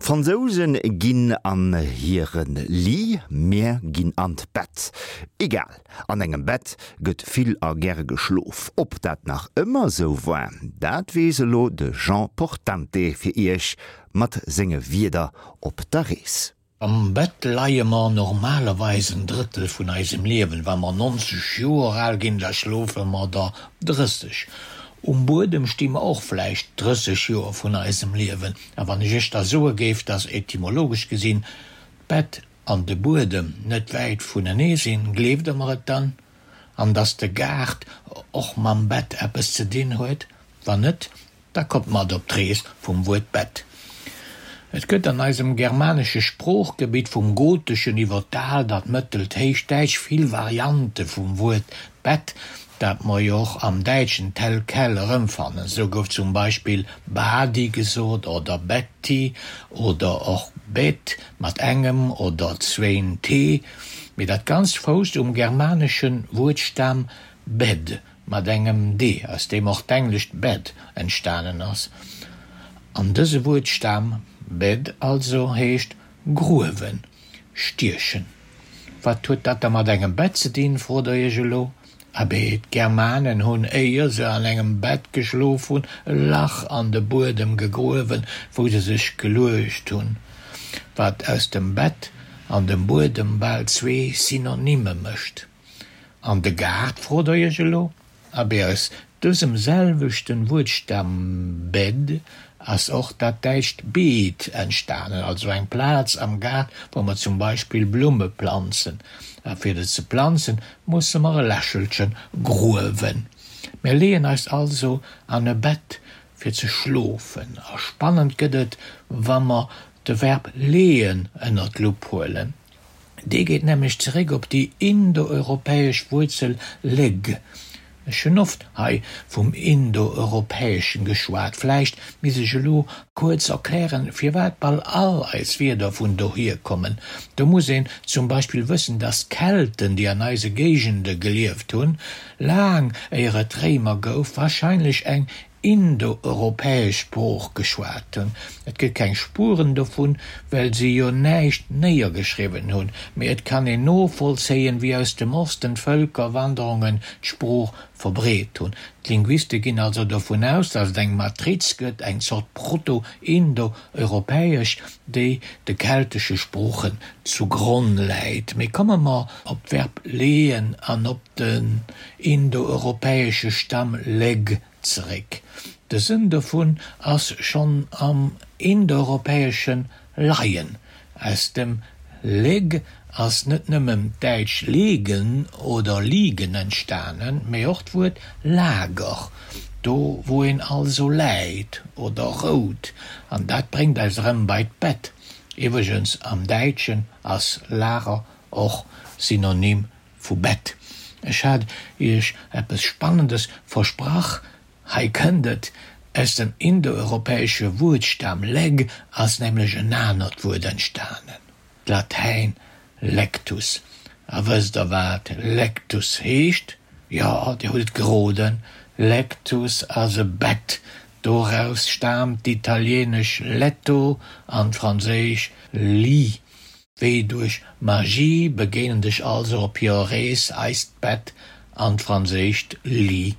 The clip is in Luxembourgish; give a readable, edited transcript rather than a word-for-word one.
D'Fransouse ginn an hire Lit, mir ginn an d'Bett. Egal, an engem Bett gëtt vill a gäre geschlof. Ob dat nach ëmmer sou war, dat weess elo de Jean Portante fir Iech mat senge Wierder op der Rees. Am Bett leie mer normalerweis en Drëttel vun eisem Liewen. Wa mer 90 Joer al ginn, da schlofe mer der 30. Um Buedem sti mer och vläicht 30 Joer vun eisem Liewen. A wann ech iech da soe géif, dass etymologesch gesinn d'Bett an de Buedem net wäit vunenee sinn, gleeft der mer et dann? An dass de Gaart och mam Bett eppes ze dinn huet? Wann net, Da kommt mat op d'Rees vum Wuert Bett. Et gëtt an eisem germanesche Sproochgebitt vum Goteschen iwwer d'Aalt an d'Mëttelt Héichdäitsch vill Variante vum Wuert Bett, dat mer jo och am Däitschen tel quel erëmfannen. Sou gouf zum Beispill Badi gesot oder Betti oder och Bet mat engem oder zwéin t. Mee dat Ganzt fousst um germanesche Wuertstam bed. Mat engem d, aus deem och d'englescht bed entstanen ass. An dëse Wuertstam, bed also, heescht gruewen, stiechen. Wat huet dat da mat engem Bett ze dinn, frot der iech elo? Abee, d'Germanen hunn, éier se an engem Bett geschlof hunn, e Lach an de Buedem gegruewen, wou se sech geluecht hunn. Wat aus dem Bett an dem Buedem bal zwee Synonyme mécht. An de Gaart, frot der iech elo? Abee, aus dësem selwechten Wuertstam bed ass och dat däitscht Beet entstanen, also eng Plaz am Gaart, wou mer zum Beispill Blumme planzen. A fir se ze planzen, musse mer e Lächelchen gruewen. Mir leeën eis also an e Bett fir ze schlofen. A spannend gëtt et, wa mer de Verb leeën ënner d'Lupp huelen. Dee geet nämlech zeréck op déi indoeuropäesch Wuerzel leg. Ech hunn oft hei vum Indoeuropäeschen geschwat. Vläicht misst ech elo kuerz erklären, firwat bal all eis Wierder vun dohier kommen. Do muss een zum Beispill wëssen, dass d'Kelten, déi an eise Géigende gelieft hunn, laang éier et d'Réimer gouf, warscheinlech eng indoeuropäesch Sprooch geschwat hunn. Et gëtt keng Spueren dovun, well si jo näischt néiergeschriwwen hunn, mee et kann een novollzéien, wéi aus dem Osten d'Vëlkerwanderungen d'Sprooch verbreet hunn. D'Linguiste ginn also dovun aus, datt et eng Matriz gëtt, eng Zort Proto-Indoeuropäesch, déi de keltesche Sproochen zu Gronn läit. Mee komme mer op d'Verb leeën an op den indoeuropäesche Stamm leg zeréck. De Sënn dovun ass schonn am Indoeuropäesche leien. Aus dem leg ass net nëmmen d'däitsch legen oder liegen entstanen, mee och d'Wuert Lager, do wou een also läit oder rout. An dat bréngt eis erëm bei d'Bett. Iwwregens, am Däitschen ass Lager och Synonym Vu Bett. Ech hat iech eppes Spannendes versprach, hei kënnt et, Aus dem indoeuropäesche Wuertstam leg ass nämlech en anert Wuert entstanen, d'Latäin lectus. A wësst der wat lectus heescht? Jo, dir hutt et geroden, lectus ass e Bett. Doraus staamt d'italieenesch letto an d'franséisch lit. Wéi duerch Magie begéinen sech also op hirer Rees eist Bett an d'franséischt Lit.